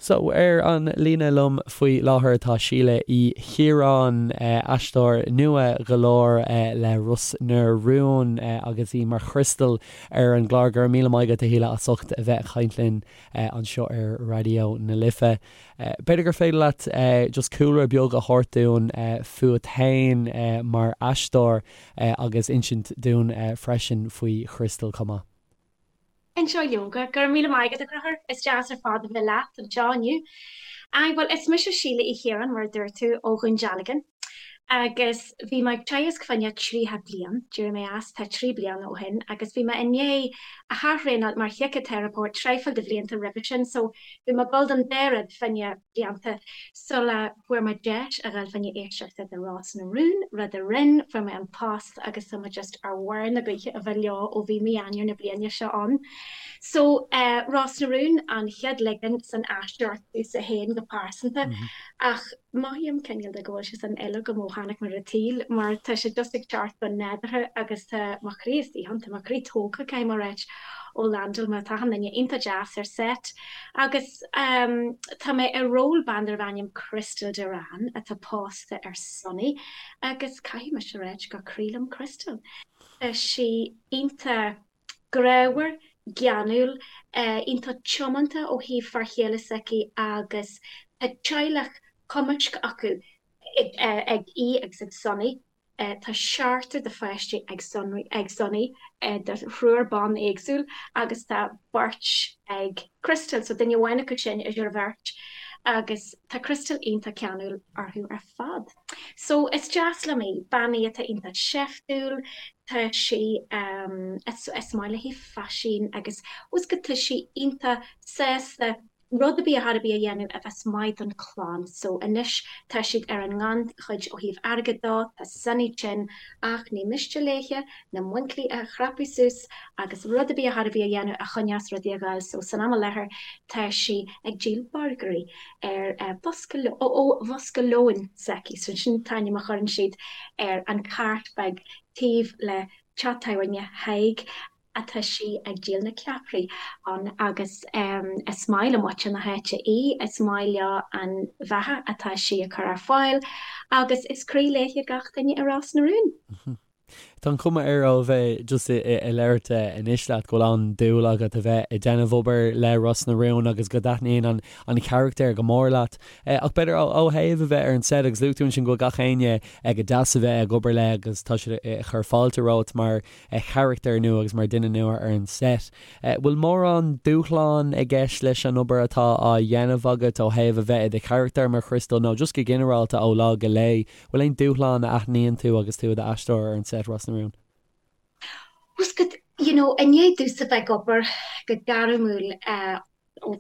So, ar an líne liom faoi láthair tá Síle Uí Chiaráin, aisteoir nua go leor le Ros na Rún agus í mar Chrystal ar an gclár. Go raibh míle maith agat a Shíle as ucht a bheith ag caint linn anseo ar Raidió na Life. B'fhéidir gur féidir leat just cúlra beag a thabhairt dúinn fút féin mar aisteoir agus insint dúinn freisin faoi Chrystal chomh maith. Inseoidh leoga, go raibh míle maith agat, a Chonchúir. Is deas ar fad a bheith leat anseo inniu. Aye, bhuel, is mise Síle Uí Chiaráin, mar a dúirt tú, ó Dhún Dealgan, agus bhí mé ag teagasc fá choinne 30 bliain, d'éirigh mé as, tá 3 bliana ó shin, agus bhí mé i ndiaidh ath-thraenáil mar shíciteiripeoir traidhfil de bhlianta roimhe sin, so bhí mé ag dul don dá rud fá choinne blianta sula bhfuair mé deis a dhul fá choinne éisteachta do Ros na Rún, rud a rinn, fuair mé an post agus tá mé just ar bharr na gaoithe a bheith leo ó bhí mí Eanáir na bliana seo ann. So eh Ros na Rún an chéad ligean san aisteoireacht domhsa féin go pearsanta ach mothaím cineál de go bhfuil sé san fhuil agam ó tháinig mé ar an tsaol mar tá sé just ag teacht go nádúrtha agus tá mo chroí istigh ann, tá mo chroí tógtha caithfidh mé a ráit ó landáil mé, tá achan duine iontach deas ar set agus tá mé i ról bean darbh ainm Crystal Duran atá pósta ar Sonny agus caithfidh mise a ráit gur croí liom Crystal. Tá sí iontach grámhar, geanúil, iontach tiomanta ó thaobh fear chéile s'aici agus tá teaghlach cumaisc acu ag í agus ag Sonny. Tá seachtar de pháistí ag Sonny de thriúr ban éagsúil agus tá beirt ag Crystal, so duine amháin acu sin idir an bheirt agus tá Crystal iontach ceanúil orthu ar fad. So is deas liom í, bean í atá iontach seiftiúil, tá sí, is maith léi faisean agus fhios agat tá sí iontach sásta rud ar bith ar chor ar bith a dhéanamh a bheas maith don chlann. So anois tá siad ar an ngannchuid ó thaobh airgid dó, tá Sonny tinn ach ní miste léithe na muincillí a chrapadh suas agus rud ar bith ar chor ar bith a dhéanamh a choinneos rudaí ag gabháil. So san am i láthair tá sí ag díol burgairí ar bhosca ó bhosca lóin s'aici. So sin an t-ainm a chuireann siad ar an cart beag taobh le teach tábhairne Thaidhg atá sí ag díol na ceapairí ann agus is maith le muintir na háite í, is maith leo an bheatha atá sí ag cur ar fáil agus is croí léithe gach duine i Ros na Rún. Tá an chuma air ó bheith just ag labhairt anois leat go bhfuil an-dúil agat a bheith ag déanamh obair le Ros na Rún agus go dtaitníonn an an charachtar go mór leat. Ach b'fhéidir ó thaobh a bheith ar an set agus luaigh tú ansin go bhfuil gach éinne go deas a bheith ag obair le agus tá siad ag cur fáilte romhat mar charachtar nua agus mar duine nua ar an set. Bhfuil mórán dúshlán i gceist leis an obair atá á dhéanamh agat ó thaobh a bheith i do charachtar mar Chrystal nó just go ginearálta ó lá go lá? Bhfuil aon dúshlán a aithníonn tú agus tú i d'aisteoir ar an set Ros na Rún? Fhios agat, you know, i ndiaidh domhsa bheith ag obair go gairmiúil ó,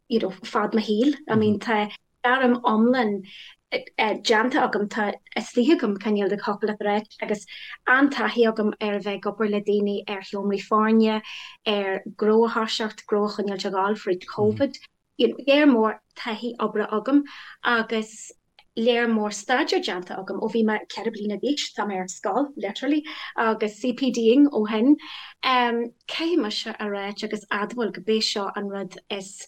you know, fad mo shaoil, I mean tá gairm iomlán déanta agam, tá istigh agam cineál de thiocfadh leat a ráit agus an-taithí agam ar a bheith ag obair le daoine ar sheomraí foirne, ar gnó a thoiseacht, gnó a choinneáilt ag gabháil fríd Covid. You know, léar mór taithí oibre agam agus léar mór staidéir déanta agam ó bhí mé 4 bliana d'aois, tá mé ar scoil, literally, agus CPD-ing ó shin. Caithfidh mise a ráit agus admháil go b'é seo an rud is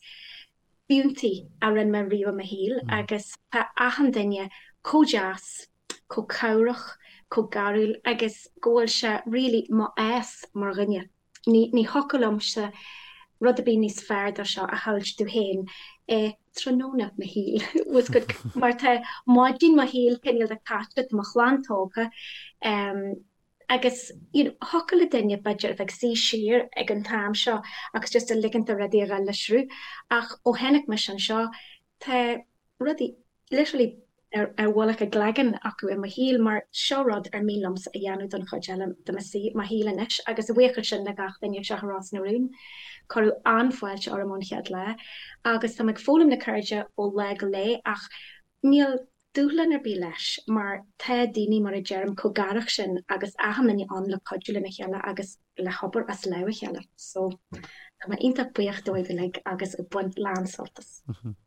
fiúntaí a rinne mé riamh i mo shaol agus tá achan duine chomh deas, chomh cabhrach, chomh garúil agus go bhfuil sé really mo fhás mar dhuine. Ní ní thiocfadh liomsa rud ar bith níos fearr dó seo a shamhailt domh féin i tráthnóna mo shaoil bhfuil fhios agat mar tá maidin mo shaoil cineál de caite, tá mo chlann tógtha, Agus you know thiocfadh le duine b'fhéidir a bheith ag suí siar ag an t-am seo agus just a ligint do rudaí a dhul le sruth ach ó tháinig mise anseo tá rudaí literally ar ar mhullach a gcloigeann acu i mo shaol mar seo rud ar mian liomsa a dhéanamh don chuid eile de mo mo shaol anois agus a bhuíochas sin le gach duine anseo i Ros na Rún. Cuireadh an-fháilte orm ón chéad lá agus tá mé ag foghlaim na ceirde ó lá go lá ach Níl dúshlán ar bith leis mar tá daoine, mar a deirim, chomh garach sin agus achan duine ann le cuidiú lena chéile agus le hobair as lámh a chéile. So, tá mé iontach buíoch dóibh uilig agus ag baint lán sult as.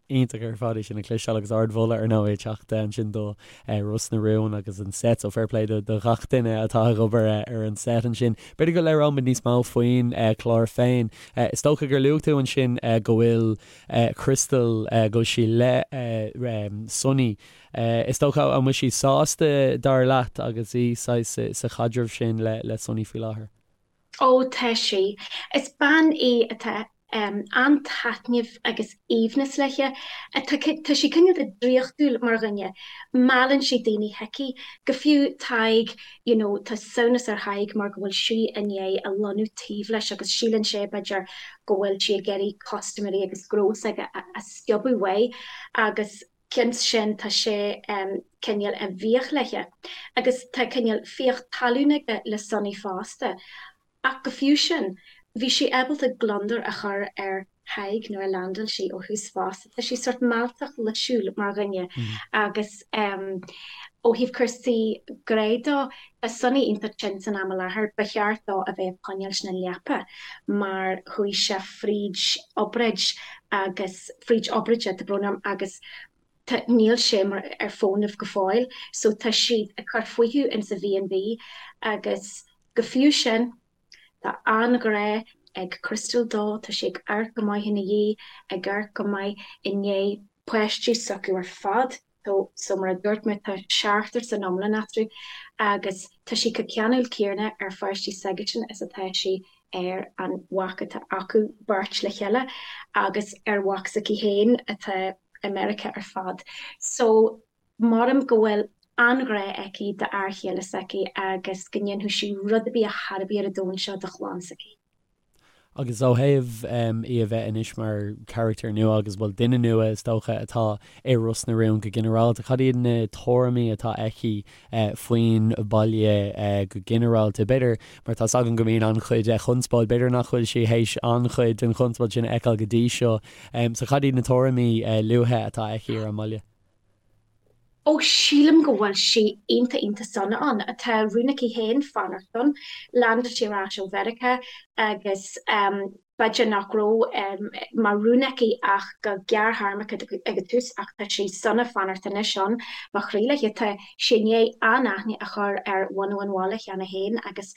Iontach ar fad é sin a chloisteáil agus ardmholadh ar ndóigh ag teacht ansin do Ros na Rún agus an set so fair play do ghach duine atá ag obair ar an set ansin. B'fhéidir go labhróimid níos mó faoin chlár féin. Is dócha gur luaigh tú ansin go bhfuil Crystal, go bhfuil sí le Sonny. Is dócha an bhfuil sí sásta dar leat agus í saghas sa chaidreamh sin le Sonny faoi láthair? Ó, tá sí. Is bean í atá an-taitneamh agus aoibhneas léi. Tá sí cineál de draíochtúil mar dhuine. Meallann sí daoine chuici. Go fiú Tadhg, you know, tá samhnas ar Thadhg mar go bhfuil sí i ndiaidh a lonnú taobh leis agus síleann sé, b'fhéidir, go bhfuil sí ag iarraidh custaiméirí agus gnó s'aige a sciobadh uaidh agus cionn is sin tá sé cineál i bhfiach léi agus tá cineál fiach talún aige le Sonny fosta. Ach go fiú sin, bhí sí ábalta gliondar a chur ar Thadhg nuair a leaindeáil sí ó thús fosta. Tá sí sórt mealltach luisiúil mar dhuine agus ó thaobh cúrsaí grá dó, tá Sonny iontach tinn san am i láthair, ba cheart dó a bheith ag coinneáilt na leapa mar chuaigh sé fríd obráid agus fríd obráide, tá brón orm, agus tá, níl sé mar ar fónamh go fóill so tá siad ag cur fúthu insa B&B agus go fiú sin tá an-ghrá ag Crystal dó, tá sí ag amharc go maith ina dhiaidh, ag amharc go maith i ndiaidh páistí s'acu ar fad. So mar a dúirt mé tá seachtar san iomlán eatarthu agus tá sí chomh ceanúil céanna ar pháistí s'aigesean is atá sí ar an mhac atá acu beirt le chéile agus ar mhac s'aici féin atá i Meiriceá ar fad. So maram go bhfuil an-ghrá aici d'fhear chéile s'aici agus go ndéanfadh sí rud ar bith ar chor ar bith ar an domhan seo do chlann s'aici. Agus ó thaobh í a bheith anois mar charachtar nua agus, bhuel, duine nua is dócha atá i Ros na Rún go ginearálta, cad iad na tuairimí atá aici faoin bhaile go ginearálta? B'fhéidir, mar tá's againn go mbíonn an-chuid conspóid, b'fhéidir nach bhfuil sí théis an-chuid den chonspóid sin a fheiceáil go dtí seo. So cad iad na tuairimí luatha atá aici ar an mbaile? Ó, sílim go bhfuil sí iontach iontach sona ann. Tá rún aici féin fanacht ann. Leaindeáil sí ar ais ó Mheiriceá agus b'fhéidir nach raibh mar rún aici ach go gearrthéarmach ag an tús ach tá sí sona fanacht anois ann. Mo chroí léi. Tá sí i ndiaidh an-aithne a chur ar bhunadh an bhaile cheana féin agus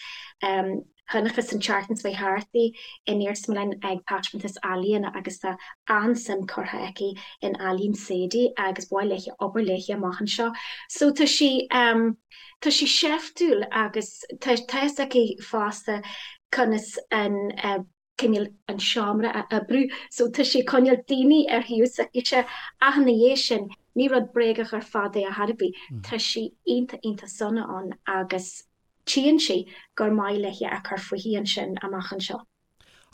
Chonacthas an tseachtain seo thart í in iarsmalann ag taispeántas ealaíona agus tá an-suim curtha aici in ealaín Sadie agus ba mhaith léi obair léi amach anseo. So tá sí tá sí seiftiúil agus tá tá fhios aici fosta conas an cineál an seomra a oibriú so tá sí ag coinneáil daoine ar thaobh s'aicise ach ina dhiaidh sin ní rud bréagach ar fad é ar chor ar bith. Tá sí iontach iontach sona ann agus Tchíonn sí gur maith léi a cur fúithi ansin amach anseo.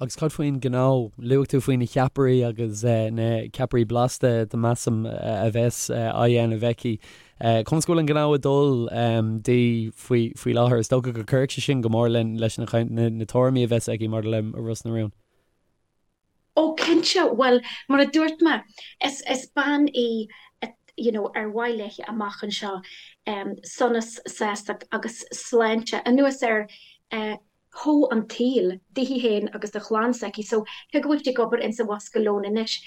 Agus cad faoin ngnó? Luaigh tú faoi na ceapairí agus na ceapairí blasta, measaim, a bheas á dhéanamh aici. Conas go bhfuil an gnó ag dul di faoi láthair? Is dócha go gcuirfidh sé sin go mór leis na tuairimí a bheas aici maidir le Ros na Rún. Ó cinnte, bhuel mar a dúirt mé, is is bean í you know ar mhaith léi amach anseo sonas, sástacht agus sláinte anuas ar shó an tsaoil daoithi féin agus do chlann s'aici. So cé go bhfuil sí ag obair insa bhosca lóin anois,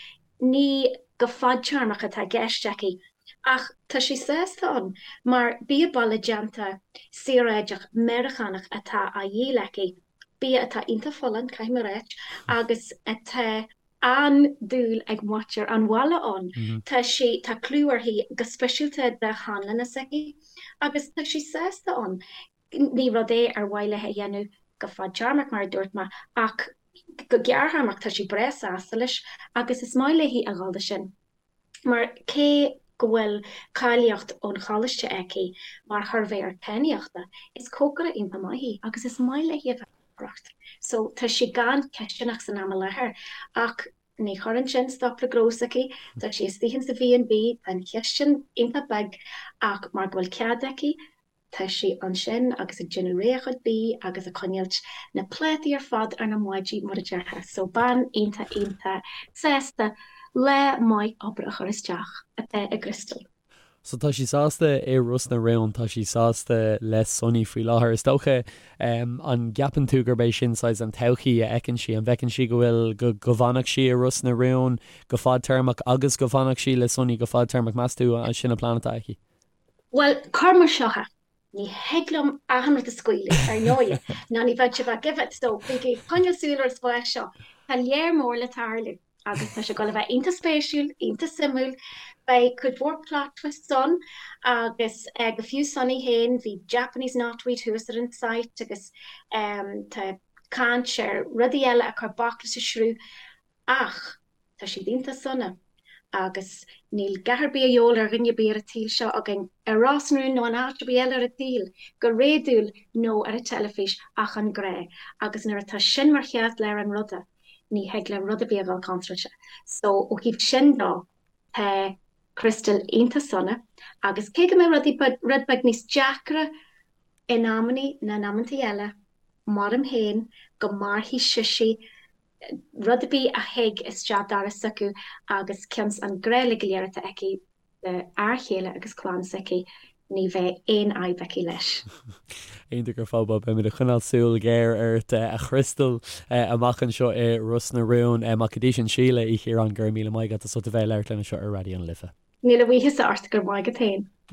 ní go fadtéarmach atá i gceist aici. Ach tá sí sásta ann mar bia baile déanta saoráideach Meiriceánach atá á dhíol aici. Bia atá iontach folláin, caithfidh mé a ráit, agus atá an-dúil ag muintir an bhaile ann. Tá sí, tá clú uirthi go speisialta do sheanlanna s'aici agus tá sí sásta ann. Ní rud é ar mhaith léi a dhéanamh go fadtéarmach, mar a dúirt mé, ach go gearrthéarmach tá sí breá sásta leis agus is maith léi a dhul do sin. Mar cé go bhfuil cáilíocht ón choláiste aici mar shuirbhéir taitníochta, is cócaire iontach maith í agus is maith léi a bheith ag cócaireacht. So tá sí gan cisteanach san am i láthair ach ní chuireann sin stop le gnó s'aici, tá sí istigh insa B&B, tá an chistin iontach beag ach mar go bhfuil cead aici, Tá sí ansin agus ag déanamh réidh a chuid bídh agus ag coinneáilt na plátaí ar fad ar na maidí mar a déarfá. So bean iontach iontach sásta lá maith oibre a chur isteach atá i gCrystal. So tá sí sásta i Ros na Rún, tá sí sásta le Sonny faoi láthair. Is dócha, an gceapann tú gurb é sin saghas an todhchaí a fheiceann sí? An bhfeiceann sí go bhfuil, go, go bhfanfadh sí i Ros na Rún go fadtéarmach agus go bhfanfadh sí le Sonny go fadtéarmach? Meas tú an sin an plean atá aici? Bhuel, cuir mar seo é, ní thig liom achan rud a scaoileadh, ar ndóighe, ná ní bheadh sé bheith give it, so bígí ag coinneáil súil ar an spás seo. Tá léar mór le tarlú agus tá sé ag dul a bheith iontach spéisiúil, iontach suimiúil. Beidh cuid mhór plot twists ann agus go fiú Sonny féin, bhí Japanese knotweed thuas ar an site agus tá caint ar rudaí eile a chuir bac leis an sruth ach Tá siad iontach sona agus níl a dhath ar bith a dhíobháil ar dhuine ar bith ar an tsaol seo againn, ar Ros na Rún nó in áit ar bith eile ar an tsaol, go réadúil nó ar an teilifís, ach an grá. Agus nuair atá sin mar cheartlár an ruda, ní thig le rud ar bith a dhul contráilte. So, ó thaobh sin dó, tá Crystal iontach sona agus cé go mbeidh rudaí rud beag níos deacra in amannaí ná in amantaí eile, maram féin go mairfidh sise rud ar bith a thig isteach doras s'acu agus cionn 's an grá uilig go léir atá aici do fhear chéile agus clann s'aici, ní bheidh aon fhadhb aici leis. Iontach ar fad, bhuel beimid ag coinneáil súil ghéar ort a Chrystal amach anseo i Ros na Rún. Ach go dtí sin Síle Uí Chiaráin, go raibh míle maith agat as ucht a bheith ag labhairt linn anseo ar Raidió na Life. Míle buíochas ort, go raibh maith agat féin.